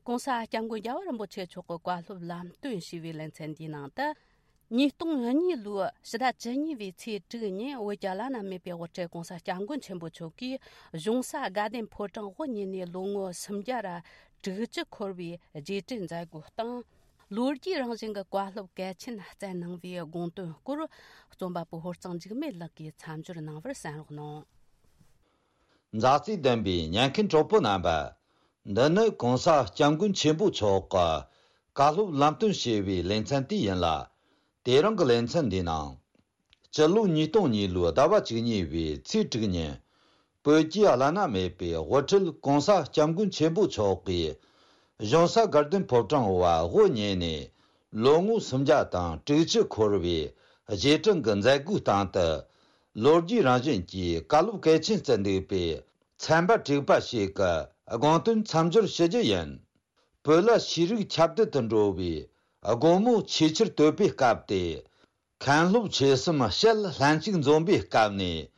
ྋགོང་ས་ྋསྐྱབས་མགོན་རྒྱལ་བ་རིན་པོ་ཆེ་མཆོག་གི་བཀའ་སློབ་ལམ་སྟོན་ཞུས་པའི་ལེ་ཚན་འདིའི་ནང་དུ། ཉིས་སྟོང་གཉིས་ལོའི་ཕྱི་ཟླ་བཅུ་གཉིས་པའི་ཚེས་དྲུག་ཉིན་བོད་ཀྱི་བླ་ན་མེད་པའི་དབུ་ཁྲིད་ྋགོང་ས་ྋསྐྱབས་མགོན་ཆེན་པོ་མཆོག་གིས་གཞུང་ས་དགའ་ལྡན་ཕོ་བྲང་དབུ་བརྙེས་ནས་ལོ་ངོ་སུམ་བརྒྱ་ར་དྲུག་ཅུ་འཁོར་བའི་རྗེས་དྲན་མཛད་སྒོའི་སྟེང་། ལོ་རྒྱུས་རང་བཞིན་གྱི་བཀའ་སློབ་གལ་ཆེན་སྩལ་གནང་བའི་དགོངས་དོན་སྐོར། རྩོམ་པ་པོ་ཧོར་གཙང་འཇིགས་མེད་ལགས་ཀྱིས་མཚམས་སྦྱོར་གནང་བར་གསན་རོགས་གནང་། མཛའ་བརྩེ་ལྡན་པའི་ཉན་མཁན་གྲོགས་པོ་རྣམ་པ། འདི་ནི་ྋགོང་ས་ྋསྐྱབས་མགོན་ཆེན་པོ་མཆོག་གི་བཀའ་སློབ་ལམ་སྟོན་ཞེས་པའི་ལེ་ཚན་དེ་ཡིན་ལ། དེ་རིང་གི་ལེ་ཚན་འདིའི་ནང་། སྤྱི་ལོ་ཉིས་སྟོང་གཉིས་ལོའི་ཟླ་བ་བཅུ་གཉིས་པའི་ཚེས་དྲུག་ཉིན། བོད་ཀྱི་བླ་ན་མེད་པའི་དབུ་ཁྲིད་ྋགོང་ས་ྋསྐྱབས་མགོན་ཆེན་པོ་མཆོག་གིས། གཞུང་ས་དགའ་ལྡན་ཕོ་བྲང་དབུ་བརྙེས་ནས་ ལོ་ངོ་སུམ་བརྒྱ་དང་དྲུག་ཅུ་འཁོར་བའི་རྗེས་དྲན་གྱི་མཛད་སྒོའི་སྟེང་དུ། ལོ་རྒྱུས་རང་བཞིན་གྱིས་བཀའ་སློབ་གལ་ཆེན་བསྩལ་འདུག་པའི་ཚན་པ་དྲུག་པ་ཞིག་གི་དགོངས་དོན་མཚམས་སྦྱོར་ཞུ་རྒྱུ་ཡིན། བོད་ལ་ཤེས་རིག་ཁྱབ་གདལ་དུ་འགྲོ་བའི་དགོང་མོ་ཆེས་ཆེར་དོད་པའི་སྐབས་ཏེ། མཁན་སློབ་ཆོས་གསུམ་ཞལ་ལྷན་ཅིག་འཛོམས་པའི་སྐབས་ནས།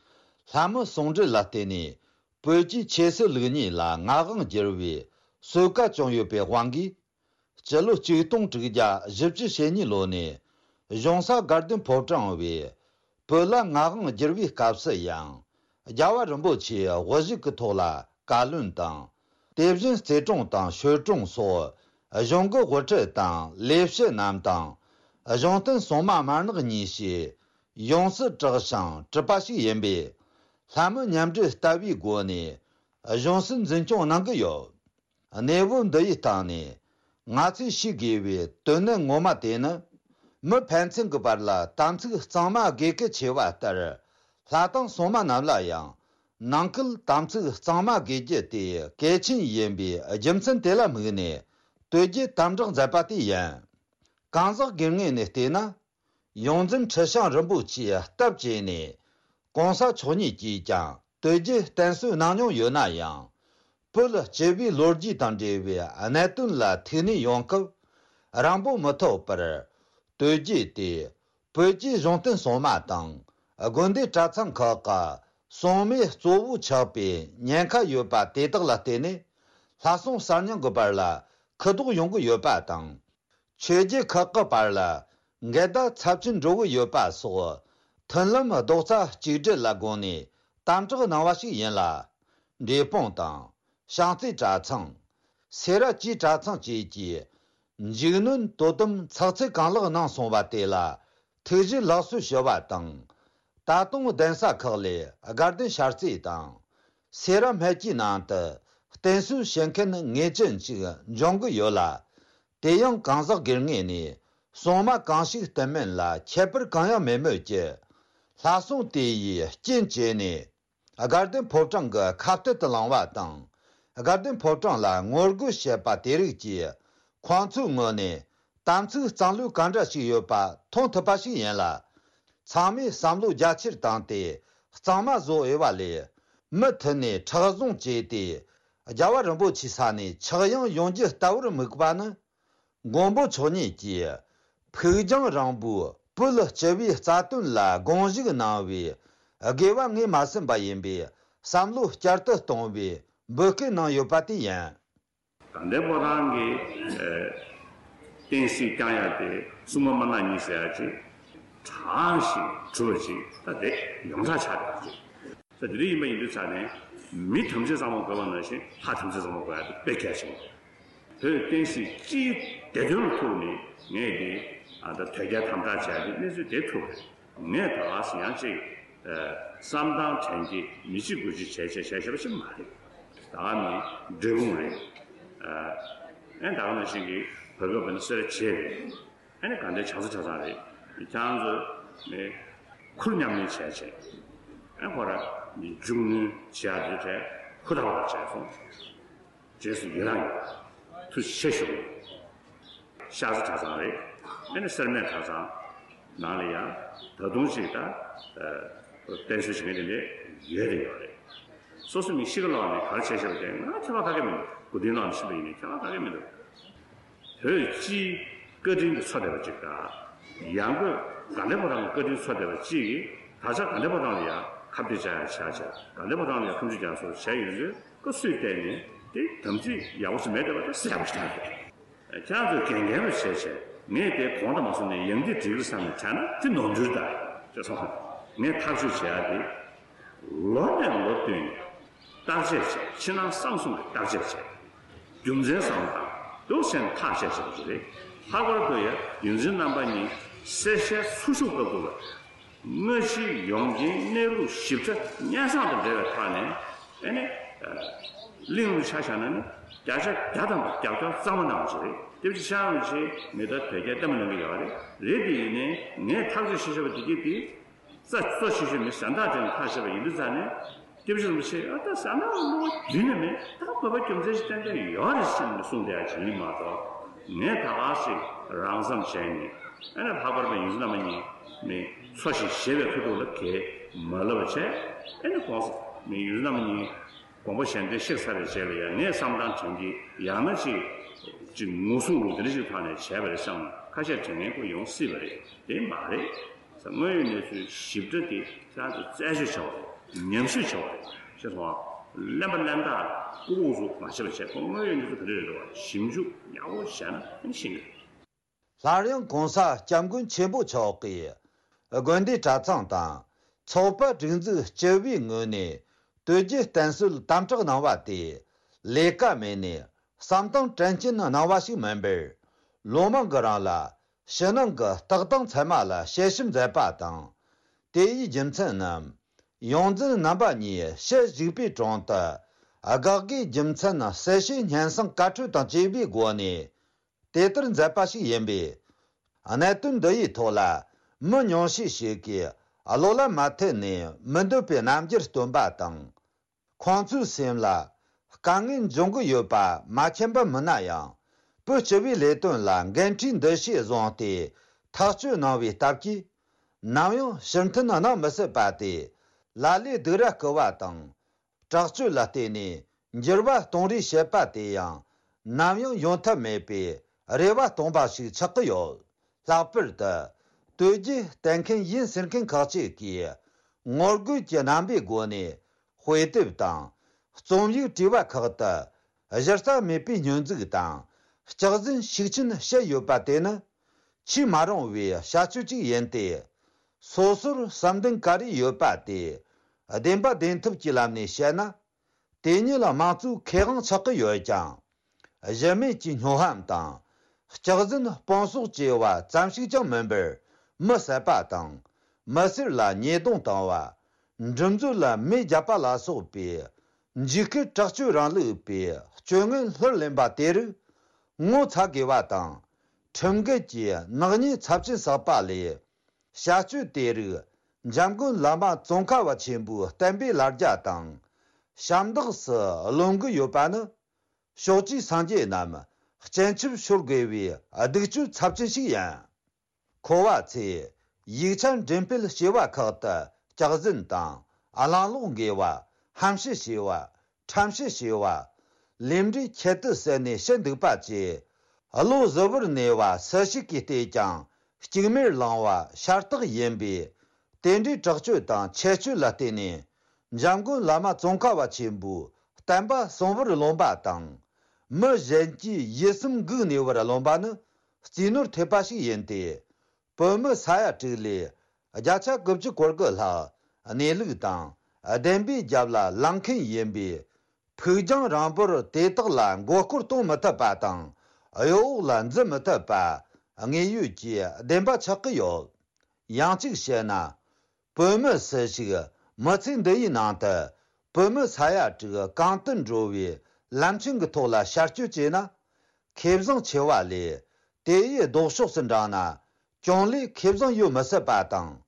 ལྷ་མི་ཟུང་འབྲེལ་ལ་བརྟེན་ནས་བོད་ཀྱི་ཆོས་སྲིད་ལུགས་གཉིས་ལ་ངག་དབང་བསྒྱུར་བའི་གསོལ་ཁ་བྱུང་ཡོད་པའི་དབང་གིས། སྤྱི་ལོ་ཆིག་སྟོང་དྲུག་བརྒྱ་བཞི་བཅུ་ཞེ་གཉིས་ལོ་ནས་གཞུང་ས་དགའ་ལྡན་ཕོ་བྲང་བས་བོད་ལ་ངག་དབང་བསྒྱུར་བའི་སྐབས་སུ་ཡང་། རྒྱལ་བ་རིན་པོ་ཆེའི་དབུ་བཞུགས་ཀྱི་ཐོག་ལ་བཀའ་བློན་དང་། དེ་བཞིན་རྩེ་དྲུང་དང་ཞོལ་དྲུང་སོགས་གཞུང་གི་དབུ་ཁྲིད་དང་ལས་བྱེད་རྣམས་དང་། གཞུང་བསྟེན་སྲུང་མ་དམར་ནག་གཉིས་ཞེས་ཡོངས་སུ་གྲགས་ཤིང་གྲུབ་པ་ཞིག་ཡིན་པས། ལྷ་མི་མཉམ་འབྲེལ་ལྟ་བུའི་སྒོ་ནས་གཞུང་སྲིད་འཛིན་སྐྱོང་གནང་གི་ཡོད། གནས་བབ་འདི་ཡི་སྟེང་ནས་ང་ཚོས་ཤེས་དགོས་པའི་དོན་ནི་ངོ་མ་དེ་ནི། མི་ཕན་ཚུན་གྱི་བར་ལ་དམ་ཚིག་གཙང་མ་དགོས་གལ་ཆེ་བ་ལྟར། ལྷ་དང་སྲུང་མ་རྣམས་ལ་ཡང་ནང་ཁུལ་དམ་ཚིག་གཙང་མ་དགོས་རྒྱུ་དེ་གལ་ཆེན་ཡིན་པའི་རྒྱུ་མཚན་དེ་ལ་དམིགས་ནས་དོལ་རྒྱལ་དམ་བསྒྲགས་མཛད་པ་དེ་ཡིན། གང་ཟག་སྒེར་ངོས་ནས་བལྟས་ན། ཡོངས་འཛིན་ཁྲི་བྱང་རིན་པོ་ཆེའི་སྟབས་བྱས་ནས་གོང་ས་མཆོག་ཉིད་ཀྱིས་ཀྱང་དོལ་རྒྱལ་བསྟེན་གསོལ་གནང་མྱོང་ཡོད་ན་ཡང་། བོད་སྤྱི་པའི་ལོ་རྒྱུས་དང་འབྲེལ་བའི་གནད་དོན་ལ་ཐུགས་སྣང་ཡོང་སྐབས་རང་འབོད་མི་ཐུབ་པར། དོལ་རྒྱལ་དེ་བོད་ཀྱི་གཞུང་བསྟེན་སྲུང་མ་དང་དགོན་སྡེ་གྲྭ་ཚང་ཁག་གི་སྲུང་མའི་གཙོ་བོ་ཆགས་པའི་ཉེན་ཁ་ཡོད་པ་དེ་དག་ལ་བརྟེན་ནས་ལྷ་སྲུང་གསར་རྙིང་གི་བར་ལ་ཁུ་དོག་ཡོང་གི་ཡོད་པ་དང་། ཆོས་བརྒྱུད་ཁག་གི་བར་ལ་འགལ་ཟླ་ཚབས་ཆེན་འགྲོ་གི་ཡོད་པ་སོགས། མཐུན་ལམ་རྡོག་རྩ་གཅིག་སྒྲིལ་ལ་དགོངས་ནས་དམ་བསྒྲགས་གནང་བ་ཞིག་ཡིན་ལ། འབྲས་སྤུངས་དང་། བྱང་རྩེ་གྲྭ་ཚང་། སེ་ར་བཅས་གྲྭ་ཚང་བཅས་ཀྱིས། འཇིགས་གནོན་དོ་དམ་ཚགས་ཚུད་གང་ལེགས་གནང་སོང་བ་དེ་ལ་ཐུགས་རྗེ་ལེགས་གསོལ་ཞུ་བ་དང་། ད་དུང་གདན་ས་ཁག་ལས་དགའ་ལྡན་ཤར་རྩེ་དང་། སེ་ར་སྨད་ཀྱི་ནང་དུ་བསྟེན་གསོལ་བྱེད་མཁན་ངེས་ཅན་ཅིག་འབྱུང་གི་ཡོད་ལ། དེ་ཡང་གང་ཟག་སྒེར་ངོས་ནས་སྲུང་མ་གང་ཞིག་བསྟེན་མིན་ལ་ཁྱད་པར་གང་ཡང་མེད་མོད་ཀྱི། ལྷ་སྲུང་དེ་ཡིས་རྐྱེན་བྱས་ནས་དགའ་ལྡན་ཕོ་བྲང་གི་ཁ་གཏད་དུ་ལངས་པ་དང་། དགའ་ལྡན་ཕོ་བྲང་ལ་ངོ་རྒོལ་བྱེད་པ་དེ་རིགས་ཀྱིས་ཁོང་ཚོའི་ངོས་ནས་དམ་ཚིག་གཙང་ལུགས་ག་འདྲ་ཞིག་ཡོད་པ་མཐོང་ཐུབ་པ་ཞིག་ཡིན་ལ། ཚང་མས་བསམ་བློ་རྒྱ་ཆེར་བཏང་སྟེ་གཙང་མ་བཟོ་འོས་པ་ལས། མུ་མཐུད་ནས་མཁྲེགས་བཟུང་བྱས་ཏེ། རྒྱལ་བ་རིན་པོ་ཆེའི་ས་ནས་ཆག་ཡང་ཡོང་རྒྱུ་ལྟ་བུར་དམིགས་པ་ནི། མགོན་པོ་མཆོག་ཉིད་ཀྱིས་ཕུགས་རྒྱང་རིང་པོའི་བོད་སྤྱི་པའི་རྩ་དོན་ལ་དགོངས་ཞུ་གནང་བའི་དགོས་པ་ངོས་མ་ཟིན་པ་ཡིན་པའི་བསམ་བློ་བསྐྱར་དུ་གཏོང་བའི་འབོད་སྐུལ་གནང་ཡོད་པ་དེ་ཡིན། དགའ་ལྡན་ཕོ་བྲང་གི་བསྟན་སྲིད་བསྐྱང་ཡག་དེ་སྲུང་མ་དམར་ནག་གཉིས་ཟེར་ཡག་ཅིག་དྲག་ཞིང་གྲུབ་པ་ཅིག་ད་དེ་ཡོངས་གྲགས་ཆགས་ཡོད་པ་ཅིག་ད་དེ་འདྲ་ཡིན་པ་ཡིན་དུས་ཙང་ནས་མི་ཐམས་ཅད་ཚང་མ་དགོས་པ་ནང་བཞིན་ལྷ་ཐམས་ཅད་ཚང་མ་དགོས་ཡག་དེ་དཔེ་གལ་ཆེན་པོ་རེད། བོད་བསྟན་སྲིད་སྤྱིའི་བདེ་དོན་ལ་ཐུག་ནས་ངས་འདི་ཨ་ད་དོལ་རྒྱལ་དམ་དྲག་བྱས་ཏེ་གནས་ཚུལ་དེ་ཐུག་རེད། ངས་ད་ག་སེ་ཡང་ཅིག་བསམ་སྟངས་དྲན་གྱི་མི་གཅིག་དགུ་གཅིག་བྱས་བྱས་བྱས་བྱས་པ་ཞིག་མ་རེད། ད་ག་ནི་འབྲས་སྤུངས་རེད། ཨ་ད་ག་ནང་བཞིན་གྱི་བོད་སྐད་བོད་ན་སེ་ར་བྱེས་རེད། ཨ་ནི་དགའ་ལྡན་ཕྱག་འཚལ་གྲྭ་ཚང་རེད། ཁྱེད་རང་ཚོ་ནི་ཁུར་མཉམ་ལེན་བྱས་བྱས་ཨ་ཁོ་ར་ནི་མཇུག་གནོན་བྱས་ཡག་དེ་གྲས་ཧུར་ཐག་པ་བྱས་སོང་། རྗེས་སུ་ཡི་རང་ཡོད། ཐུགས་རྗེ་ཆེ་ཞུ། ཤར་རྩེ་གྲྭ་ཚང་རེད། ཨ་ནི་སེར་སྨད་གྲྭ་ཚང་ནང་ལ་ཡང་ད་དུང་ཅིག་ད་བསྟེན་གསོལ་བྱེད་མཁན་དེ་འདྲས་ཡོད་རེད་ཡོད་རེད། སོ་སོ་མི་ཤི་ཁ་ལོག་ནས་ག་རེ་བྱས་བཞག་པ་དེ་ང་ཁྱད་པར་ག་གེ་མི་འདུག་དགུ་སྟོན་ལོག་ནས་ཤི་བ་ཡིན་ནའི་ཁྱད་པར་ག་གེ་མི་འདུག་བོད་སྤྱིའི་བཀའ་དྲིན་དེ་འཚོ་བསྡད་པ་ཅིག་དང་། ཡང་སྒོས་དགའ་ལྡན་ཕོ་བྲང་གི་བཀའ་དྲིན་འཚོ་བསྡད་པ་གཅིག་གིས་ད་ཆ་དགའ་ལྡན་ཕོ་བྲང་ལ་ཡང་ཁ་གཏད་བཅག་ཡག་བྱས་བྱས་དགའ་ལྡན་ཕོ་བྲང་ལ་ཡང་ཁ་མཆུ་རྒྱག་སོགས་བྱས་ཡོང་དུས་སྐབས་སུ་བལྟས་ནས་དེ་དམ་ཚིག་ཡག་པོ་ཞིག་མེད་བསྡད་པ་དེ་གསལ་པོ་ཞིག་ཆགས་ཡོད། ཁྱེད་རང་ཚོས་འགན་འགན་རུ་བྱས་བྱས་ངས་དེ་གོང་དུ་མ་སོང་ནས་ཡང་དེ་འགྲིག་གི་བསམ་ནས་བྱས་ན་དེ་ནོར་འཁྲུལ་ད་ཅེས་སོང་། ངས་ཐག་གཅོད་བྱེད་ཡག་དེ། ལོ་ནས་ལོ་བསྟུད་ནས་བརྟག་དཔྱད་བྱས། ཕྱི་ནང་གསང་གསུམ་གྱི་བརྟག་དཔྱད་བྱས། རྒྱུ་མཚན་བསམ་བློ་བཏང་འདུག་ཟེར་ནས་ཐག་བཅད་བཞག་པ་ཞིག་རེད། ལྷག་པར་དུ་ཡང་ཡོངས་འཛིན་རྣམ་པ་གཉིས་གསལ་བཤད་ཚུར་ཞུགས་སྐབས་དུ་ལ། དངོས་གཞིའི་ཡོངས་ཀྱི་གནས་ལུགས་ཞིབ་ཕྲ་སྙན་སེང་དང་འབྲེལ་བའི་ཐོག་ནས་ཨ་ནི་གླེང་ལུགས་ཆ་བཞག་ན་ནི་བརྒྱ་ཆ་བརྒྱ་ཐམ་པ་རྒྱབ་སྐྱོར་གཙང་མ་གནང་བ་ཞིག་རེད། དེ་བཞིན་ཤར་རིན་པོ་ཆེ་མི་ལྟར་དོལ་རྒྱལ་ལྟད་མོ་གནང་གི་ཡོད་རེད། རེད་དེ་ཡིན་ནའི་ངས་ཐག་གཅོད་བྱེད་ཆོག་པ་དེ་གྱིས་དེ། རྩ་གཙོ་ཆེ་ཤོས་མི་གཟེངས་རྟགས་ཅན་ཐག་བཅད་པ་ཡིན་དུས་ཙང་ནས་སྐྱབས་རྗེ་རིན་པོ་ཆེས་ཨ་ད་གཟེངས་རྟགས་བླུགས་པ་རྒྱུན་ནས་མེད། ད་དགོས་པ་རྒྱུ་མཚན་ཞིག་གཏན་གཏན་ཡོད་རེད་ཟེར་ནས་གསུངས་བསྡད་ཡག་ཅིག་ཡིན་མ་གཏོགས་ ངས་ད་ག་ཞིག་རང་བསམ་བྱས་ནས། ཨ་ནི་ལྷག་པར་དུ་ཡོངས་འཛིན་རྣམ་པ་གཉིས་ནི་འཚོ་ཞིང་གཞེས་པའི་ཁ་ཐུག་ལ་གས་མ་ལབ་པ་བྱས། ཨ་ནི་གོང་ས་ནི་ཡོངས་འཛིན་རྣམ་པ་གཉིས་དགོངས་པ་གཞན་དོན་གཤེགས་ཚར་བའི་རྗེས་ལ་ཡང་ངས་བསམ་སྟངས་དྲན་གྱི་ཡང་ན་ཅིག་ཅིག་ངོ་སྲུང་ལུགས་དེ་འདྲ་ཞིག་ཐོག་ནས་བྱས་པ་རེད་བསམ་ན། ཁ་ཤས་དྲན་མཁན་ཁོ་ཡོང་སྲིད་པ་རེད། དེ་མ་རེད། དངོས་ཡོད་གནས་ཚུལ་ཞིབ་ཕྲ་དེ་ཁྱེད་རང་ཚོ་རྩད་གཅོད་བྱ་བ་རེད། ཉམས་ཞིབ་བྱ་བ་རེད། ཤེས་སོང་ཨ། གླེན་པ་གླེན་རྟགས་ལྐུགས་ལྐུགས་སུ་མ་བྱེད་པ་བྱས། ཁོ་དངོས་ཡོད་གནས་ཚུལ་ག་རེ་རེད་རེད་བ། ཞིབ་འཇུག་ཡག་པོ་བྱས་ན་ཨ་ནི་ཤེས་ཀྱི་རེད། སླར་ཡང་གོང་ས་སྐྱབས་མགོན་ཆེན་པོ་མཆོག་གིས་དགོན་སྡེ་གྲྭ་ཚང་དང་ཚོགས་པ་སྒྲིག་འཛུགས་སྤྱི་པའི་ངོས་ནས་དོལ་རྒྱལ་བསྟེན་གསོལ་དམ་དྲག་གནང་བ་དེ་ལས་ཀ་མེད་ནས་བསམ་སྟངས་དྲན་རྐྱེན་གནང་བ་ཞིག་མིན་པར། ལོ་མང་གི་རིང་ལ་ཕྱི་ནང་གི་ལྟ་སྟངས་ཚད་མ་ལ་དཔྱད་ཞིབ་མཛད་པ་དང་། དེ་ཡི་རྒྱུ་མཚན་ནི། ཡོངས་འཛིན་རྣམ་པ་གཉིས་ཞལ་གཅིག་པའི་དྲུང་དུ། དགག་དགེའི་རྒྱུ་མཚན་གསལ་བཤད་སྙན་སེང་བཀའ་འཁྲོལ་དང་བཅས་པའི་སྒོ་ནས། དེ་ལྟར་མཛད་པ་ཞིག་ཡིན་པས། གནད་དོན་འདི་ཡི་ཐོག་ལ་མི་ཉུང་ཤས་ཤིག་གིས་བློ་ལ་མ་འཐད་ནས་མི་འདོད་པའི་རྣམ་འགྱུར་སྟོན་པ་དང་། ཁོང་ཚོའི་སེམས་ལ་དཀའ་ངལ་འབྱུང་གི་ཡོད་པ་མ་མཁྱེན་པ་མིན་ན་ཡང་། བོད་སྤྱི་པའི་ལས་དོན་ལ་འགན་འཁྲི་འདི་ཞིག་བཟུང་སྟེ་ཐག་གཅོད་གནང་བའི་སྟབས་ཀྱིས། ནམ་ཡང་ཕྱིར་འཐེན་གནང་མི་སྲིད་པ་དེ། ལ་ལས་སྡུག་ར་རྐུ་བ་དང་། དྲག་སྤྱོད་ལ་བརྟེན་ནས་འགྱུར་བ་གཏོང་རེས་བྱེད་པ་དེ་ཡང་ནམ་ཡང་ཡོང་ཐབས་མེད་པའི་རེ་བ་སྟོང་པ་ཞིག་ཆགས་ཀྱི་ཡོད། ལྷག་པར་དུ་དོལ་རྒྱལ་བསྟེན་མཁན་ཡིན་ཟེར་མཁན་ཁག་ཅིག་གིས་ངོ་རྒོལ་གྱི་རྣམ་པའི་སྒོ་ནས་དཔེ་དེབ་དང་རྩོམ་ཡིག་བྲིས་པ་ཁག་ཏུ་གཞི་རྩ་མེད་པའི་སྙོན་འཛུགས་དང་སྐྱག་རྫུན་ཤུགས་ཆེན་བཤད་ཡོད་པ་དེ་ནི་ཆེས་མ་རུང་བའི་བྱ་སྤྱོད་ཅིག་ཡིན་ཏེ། སོ་སོར་བསམ་གཏན་ག་རེ་ཡོད་པ་དེ་བདེན་པ་བདེན་ཐུབ་ཀྱི་ལམ་ནས་བཤད་ན། དེ་ཉིད་ལ་དམངས་གཙོའི་ཁེ་དབང་ཆགས་ཀྱི་ཡོད་ཀྱང་། གཞི་མེད་ཀྱི་སྨྱོ་ཧམ་དང་། སྐྱག་རྫུན་སྤུངས་གསོག་བྱས་པ་ཙམ་ཞིག་ཀྱང་མིན་པར། མི་བསད་པ་དང་། མི་སེར་ལ་ཉེས་རྡུང་བཏང་བ། འགྲུལ་འཛོལ་ལ་མེ་བརྒྱབ་པ་ལ་སོགས་པའི་འཇིགས་སྐུལ་དྲག་སྤྱོད་རིང་ལུགས་པའི་སྤྱོད་ངན་ལྷུར་ལེན་པ་དེ་རིགས་ངོ་ཚ་དགོས་པ་དང་། ཁྲིམས་འགལ་གྱི་ནག་ཉེས་ཚབས་ཆེན་བསགས་པ་ལས། བྱ་སྤྱོད་དེ་རིགས་འཇམ་མགོན་བླ་མ་ཙོང་ཁ་པ་ཆེན་པོའི་བསྟན་པའི་ལ་རྒྱ་དང་། ཞབས་འདེགས་སུ་ལོན་གྱི་ཡོད་པ་ནི། ཕྱོགས་བཅུའི་སངས་རྒྱས་རྣམས་སྤྱན་ཆབ་ཤོར་དགོས་པའི་སྡིག་སྤྱོད་ཚབས་ཆེན་ཞིག་ཡིན། འཁོར་བ་ཚོས་ཡིག་ཆ་འགྲེམས་སྤེལ་བྱས་པ་ཁག་ཏུ་སྐྱག་རྫུན་དང་གླེང་ལོག་འགེལ་བ། ཧམ་བཤད་བྱས་པ། ཁྲམ་བཤད་བྱས་པ། ལས་འབྲས་ཁྱད་དུ་བསད་ནས་བཤད་འདུག་པ་བཅས། བློ་གཟུ་བོར་གནས་པ་སུ་ཞིག་གིས་བལྟས་ཀྱང་གཅིག་མེར་ལང་བ་ཤ་སྟག་ཡིན་པས། དེ་འདྲའི་དྲག་སྤྱོད་དང་ཆེ་སྤྱོད་ལ་བརྟེན་ནས། འཇམ་མགོན་བླ་མ་ཙོང་ཁ་པ་ཆེན་པོའི་བསྟན་པ་གསང་བར་རློམ་པ་དང་། མི་གཞན་གྱི་ཡིད་སེམས་འགུག་ནུས་པར་རློམ་པ་ནི་རྩིས་ནོར་ཐེབས་པ་ཞིག་ཡིན་ཏེ། བོད་མི་ས་ཡ་དྲུག་ལས་བརྒྱ་ཆ་དགུ་བཅུ་གོ་དགུ་ལྷག་གནས་ལུགས་དང་བདེན་པའི་རྒྱབ་ལ་ལངས་མཁན་ཡིན་པས། ཕུགས་རྒྱང་རིང་པོར་དེ་དག་ལ་མགོ་སྐོར་གཏོང་མི་ཐུབ་པ་དང་གཡོ་འོག་ལ་འཛུལ་མི་ཐུབ་པ་དངོས་ཡོད་ཀྱི་བདེན་པ་ཆགས་ཀྱི་ཡོད། ཡང་གཅིག་བཤད་ན། བོད་མི་སུ་ཞིག་མི་ཚེ་འདི་ཡི་ནང་དུ་བོད་མི་ས་ཡ་དྲུག་གང་དུ་འགྲོ་བའི་ལམ་ཆེན་གྱི་ཐོག་ལ་ཤར་སྐྱོད་བྱས་ན། ཁེ་བཟང་ཆེ་བ་ལས་དེ་ཡི་ལྡོག་ཕྱོགས་སུ་འབྲངས་ན་གྱོང་ལས་ཁེ་བཟང་ཡོད་མི་སྲིད་པ་དང་།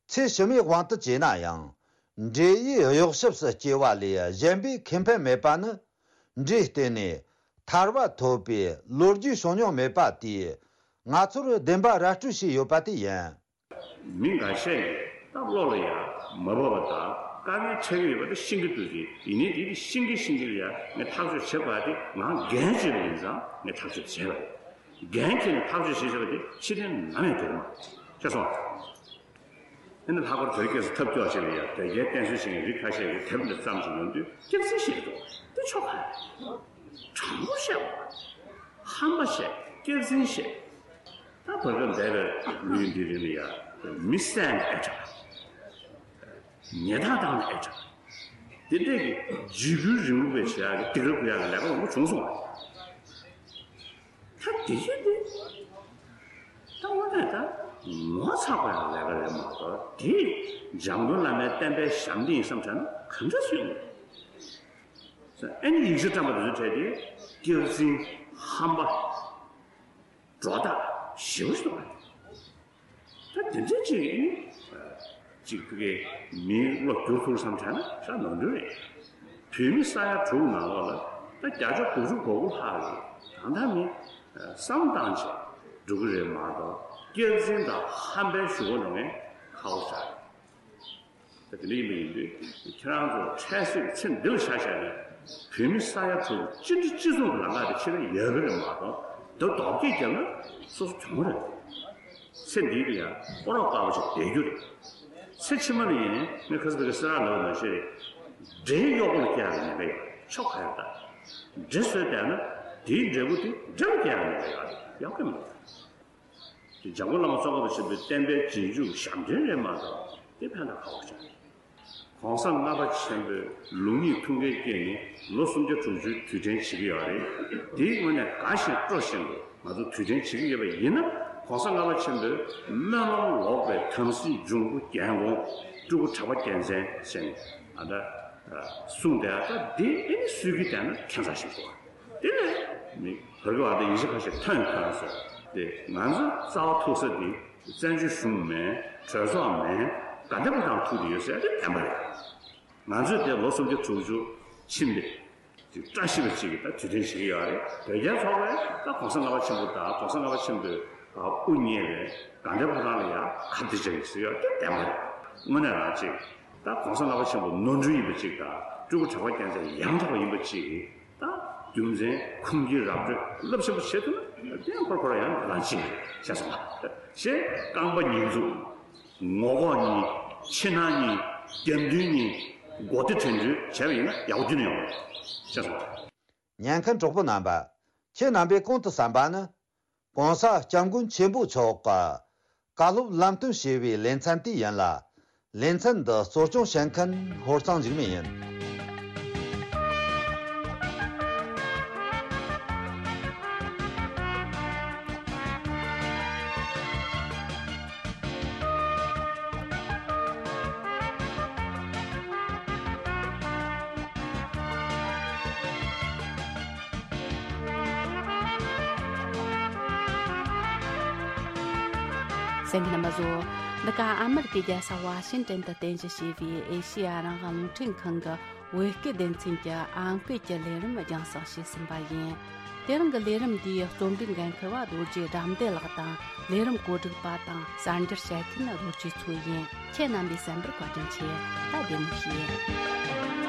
ཚེ་ཕྱི་མའི་དབང་དུ་བྱས་ན་ཡང་། འབྲས་ཡི་གཡོ་ཞབས་སུ་སྐྱེ་བ་ལས་གཞན་པའི་ཁེ་ཕན་མེད་པ་ནི། འབྲས་བསྟེན་ནས་ཐར་པ་ཐོབ་པའི་ལོ་རྒྱུས་བྱུང་མྱོང་མེད་པ་དེས་ང་ཚོར་བདེན་པ་ར་སྤྲོད་བྱས་ཡོད་པ་དེ་ཡིན། མི་འགའ་ཤས་ཀྱིས་ད་བློ་ལ་ཡ་མ་བབས་པ་དང་དཀའ་ངལ་འཕྲད་ཀྱི་ཡོད་པ་དེ་ཤེས་ཀྱི་འདུག་ཅེས། ཡིན་ནའི་དེ་དེ་ཤེས་ཀྱི་ཤེས་ཀྱི་ལ་ཡ་ངས་ཐག་གཅོད་བྱེད་དགོས་པ་དེ་ང་འགན་བཞེས་པ་ཡིན་ཙང་ངས་ཐག་གཅོད་བྱས་པ་རེད། འགན་འཁྱེར་ནས་ཐག་གཅོད་བྱེད་བྱེད་པ་དེ་ཕྱིར་འཐེན་ནམ་ཡང་འགྲོ་གི་མ་རེད། ཤེས་སོང་། ཨ་ནི་ལྷག་པར་དོལ་རྒྱལ་སུ་ཐབས་སྐྱོ་ཞིག་ལ་ཡ་དོལ་རྒྱལ་བསྟེན་གསོལ་བྱེད་མཁན་རིགས་ཁ་ཤས་ཀྱིས་དེབ་འདི་བརྩམས་ཤིང་ཡོང་དུས་སྐྱག་རྫུན་བཤད་ཀྱི་འདུག་དེ་ཆོག་ག་རེད། དྲང་པོ་བཤད་པ། ཧམ་པ་བཤད། སྐྱག་རྫུན་བཤད། ད་བར་སྐབས་འདས་པའི་ལོ་ཡི་འདི་རིང་ལ་ཡ་མི་བསད་ན་ཨེ་དྲག་ཉེས་རྡུང་བཏང་ན་ཨེ་དྲག་དེ་འདྲས་ཀྱི་འཇིགས་སྐུལ་རིང་ལུགས་པའི་བྱེད་ཡག་གི་སྡིགས་ར་རྐུ་ཡག་གི་ལས་ཀ་མང་པོ་བྱུང་སོང་བ། ད་དེ་བཞིན་དེ་ད་དངོས་གནས་ད་ངོ་ཚ་དགོས་ཡག་ལས་ཀ་རེད་མ་གཏོགས། དེ་འཇམ་མགོན་བླ་མའི་བསྟན་པའི་ཞབས་འདེགས་ཡིན་བསམ་བྱས་ན་གང་འདྲ་སུས་ཡོང་། ཨ་ནི་ཡིག་ཆ་བཀྲམ་པ་དེ་ཚོའི་གྲས་དེ་སྐྱག་རྫུན། ཧམ་པ། སྒྲོ་བཏགས་ཞེ་པོ་ཞིག་འདུག་བ། ད་དེ་འདྲ་ཅིག་ཨ་ནི་ཅིག་ཕ་གིའི་མིའི་བློ་བསྒྱུར་ཐུབ་བསམ་བྱས་ན་ཤ་ནོར་འཁྲུལ་རེད། བོད་མི་ས་ཡ་དྲུག་ནང་ལོགས་ལ་ད་བརྒྱ་ཆ་དགུ་བཅུ་གོ་དགུ་ལྷག་གིས་ད་ལྟ་མི་ བསམ་བཏང་བྱས་འགྲོ་གི་རེད་མ་གཏོགས། སྐྱག་རྫུན་དང་ཧམ་པའི་ཞུ་སྒོ་འགྲོ་མཁན་ཁག་པོ་ཞིག་རེད། ད་དེ་འདྲ་ཡིན་པ་ཡིན་དུས། ཁྱེད་རང་ཚོ་འཕྲལ་སེལ་ཚེ་འདི་ལ་ཆ་བཞག་ནས། བོད་མི་ས་ཡ་དྲུག་གཅིག་སྒྲིལ་གཅིག་མཚུངས་ཀྱི་ལམ་ཁ་དེ་ཕྱིར་ཡོད་ཀྱི་རེད་མ་གཏོགས། འདི་རྡོག་རྒྱག་བརྒྱབ་ན་སོ་སོ་གྱོང་རེད། ཚེ་འདི་ལ་ཡང་སྤོ་རོག་དཀར་པོ་ཞིག་བསྡད་རྒྱུ་རེད། ཚེ་ཕྱི་མ་ལ་ཡིན་ནའི་ཁ་སང་ཕ་གི་སེ་ར་ལབ་པ་ནང་བཞིན་རེད། འདྲེ་གཡོག་པོ་ལ་སྐྱེ་ཡག་ཉེན་ཁ་ཡོད། ཆོ་ག་ཡོད་ད། འདྲེ་བཟོས་བསྡད་ན་དེའི་འབྲས་བུ་དེ་འདྲེ་ལ་སྐྱེ་ཡག་ཉེན་ཁ་ཡོད་རེད། ཡག་གི་མ་རེད། དེ་འཇམ་མགོན་བླ་མ་ཙོང་ཁ་པ་ཆེན་པོའི་བསྟན་པའི་རྗེས་འཇུག་ཞབས་འདྲེན་རེད་མ་གཏོགས། དེ་ཕན་ཐོགས་ག་པར་བྱུང་། གོང་ས་ལྔ་པ་ཆེན་པོའི་ལུགས་གཉིས་ཐུགས་འགན་བསྐྱེད་ནས་ལོ་སུམ་བརྒྱ་དྲུག་ཅུའི་དུས་དྲན་བྱེད་ཀྱི་ཡོད་རེད། དེའི་སྔོན་ནས་དགའ་བཞིན་སྤྲོ་བཞིན་དུ་ང་ཚོ་དུས་དྲན་བྱེད་ཀྱི་ཡོད་པ་ཡིན་ན། གོང་ས་ལྔ་པ་ཆེན་པོའི་སྨོན་ལམ་ལོག་པའི་དམ་སྲི་འབྱུང་པོ་རྒྱལ་འགོང་སྤྲུལ་སྐུ་གྲགས་པ་རྒྱལ་མཚན་ཟེར་ནས་ཨ་ད་གསུངས་བསྡད་ཡག་ད་དེ་ཨེ་ནི་སྲོལ་གྱི་བསྡད་ན་ཁྱད་མཚར་ཞིག་འདུག་དེ་ནས་མི་བར་གྱི་བར་དུ་ཡིན་གཅིག་མིན་གཅིག་ཐོན་ཐོན་སོང་། དེ་ང་ཚོ་རྩ་བ་ཐུག་ས་དེ་བཙན་བྱོལ་གཞུང་མིན། གྲོས་ཚོགས་མིན། དགའ་ལྡན་ཕོ་བྲང་ཐུག་དེ་ཡོད་ཟེར་ཡག་དེ་བདེན་པ་རེད། ང་ཚོས་དེ་ལོ་སུམ་བརྒྱ་དྲུག་ཅུ་ཕྱིན་པའི་དེ་བཀྲ་ཤིས་པ་ཅིག་གི་ད་དུས་དྲན་བྱེད་ཀྱི་ཡོད་རེད། བོད་རྒྱའི་ཚོགས་པས་ད་གོང་ས་ལྔ་པ་ཆེན་པོ་དང་གོང་ས་ལྔ་པ་ཆེན་པོས་དབུ་བརྙེས་པའི་དགའ་ལྡན་ཕོ་བྲང་ལ་ཡང་ཁ་གཏད་བཅག་གི་ཟེར་ཡག་དེ་བདེན་པ་རེད། དངོས་གནས་རང་ཅིག་ད་གོང་ས་ལྔ་པ་ཆེན་པོ་ནོར་འཁྲུལ་ཡིན་པ་ཅིག་དང་། སྤྲུལ་སྐུ་གྲགས་པ་རྒྱལ་མཚན་ཡང་དག་པ་ཡིན་པ་ཅིག་ད་རྒྱུ་མཚན་ཁུངས་སྐྱེལ་ར་སྤྲོད་རླབས་ཆེན་པོ་བྱེད་ཐུབ་ན། དེ་ཡང་ཁོ་རང་ཁོ་རང་ཡང་རང་བཞིན་རེད་ཤེས་སོང་ང་། ཞེས་རྐང་པ་ཉིས་འཛུགས། ངོ་ལྐོག་གཉིས། ཕྱི་ནང་གཉིས། རྒྱབ་མདུན་གཉིས། མགོ་རྟིང་བྲེག་འགྲོས་བྱས་པ་ཡིན་ན་ཡག་པོ་རྒྱུན་ནས་ཡོང་བ་རེད་ཤེས་སོང་ང་། ཉན་མཁན་གྲོགས་པོ་རྣམ་པ། ཁྱེད་རྣམ་པས་གོང་དུ་གསན་པ་ནི། གོང་ས་སྐྱབས་མགོན་ཆེན་པོ་མཆོག་གི་བཀའ་སློབ་ལམ་སྟོན་ཞེས་པའི་ལེ་ཚན་དེ་ཡིན་ལ། ལེ་ཚན་འདི་གཙོ་སྐྱོང་བྱེད་མཁན་ཧོར་གཙང་འཇིགས་མེད་ཡིན། གསན་མཁན་རྣམ་པ་ཚོ། འདི་ག་ཨ་མི་རི་ཀའི་རྒྱལ་ས་ཝ་ཤིང་ཏན་དུ་རྟེན་གཞི་བྱས་པའི་ཨེ་ཤེ་ཡ་རང་དབང་རླུང་འཕྲིན་ཁང་གི་བོད་སྐད་སྡེ་ཚན་གྱི་ཨང་ཀི་གི་ལས་རིམ་རྒྱང་སྲིང་བྱས་ཟིན་པ་ཡིན། དེ་རིང་གི་ལས་རིམ་འདིའི་རྩོམ་སྒྲིག་འགན་འཁུར་བ་རྡོ་རྗེ་དགྲ་འདུལ་ལགས་དང་། ལས་རིམ་གོ་སྒྲིག་པ་དང་གསར་འགྱུར་བཤད་མཁན་རྡོ་རྗེ་མཚོ་ཡིན། ཁྱེད་རྣམ་པས་གསན་པར་བཀའ་དྲིན་ཆེ། ད་བདེ་མོ་བྱོས།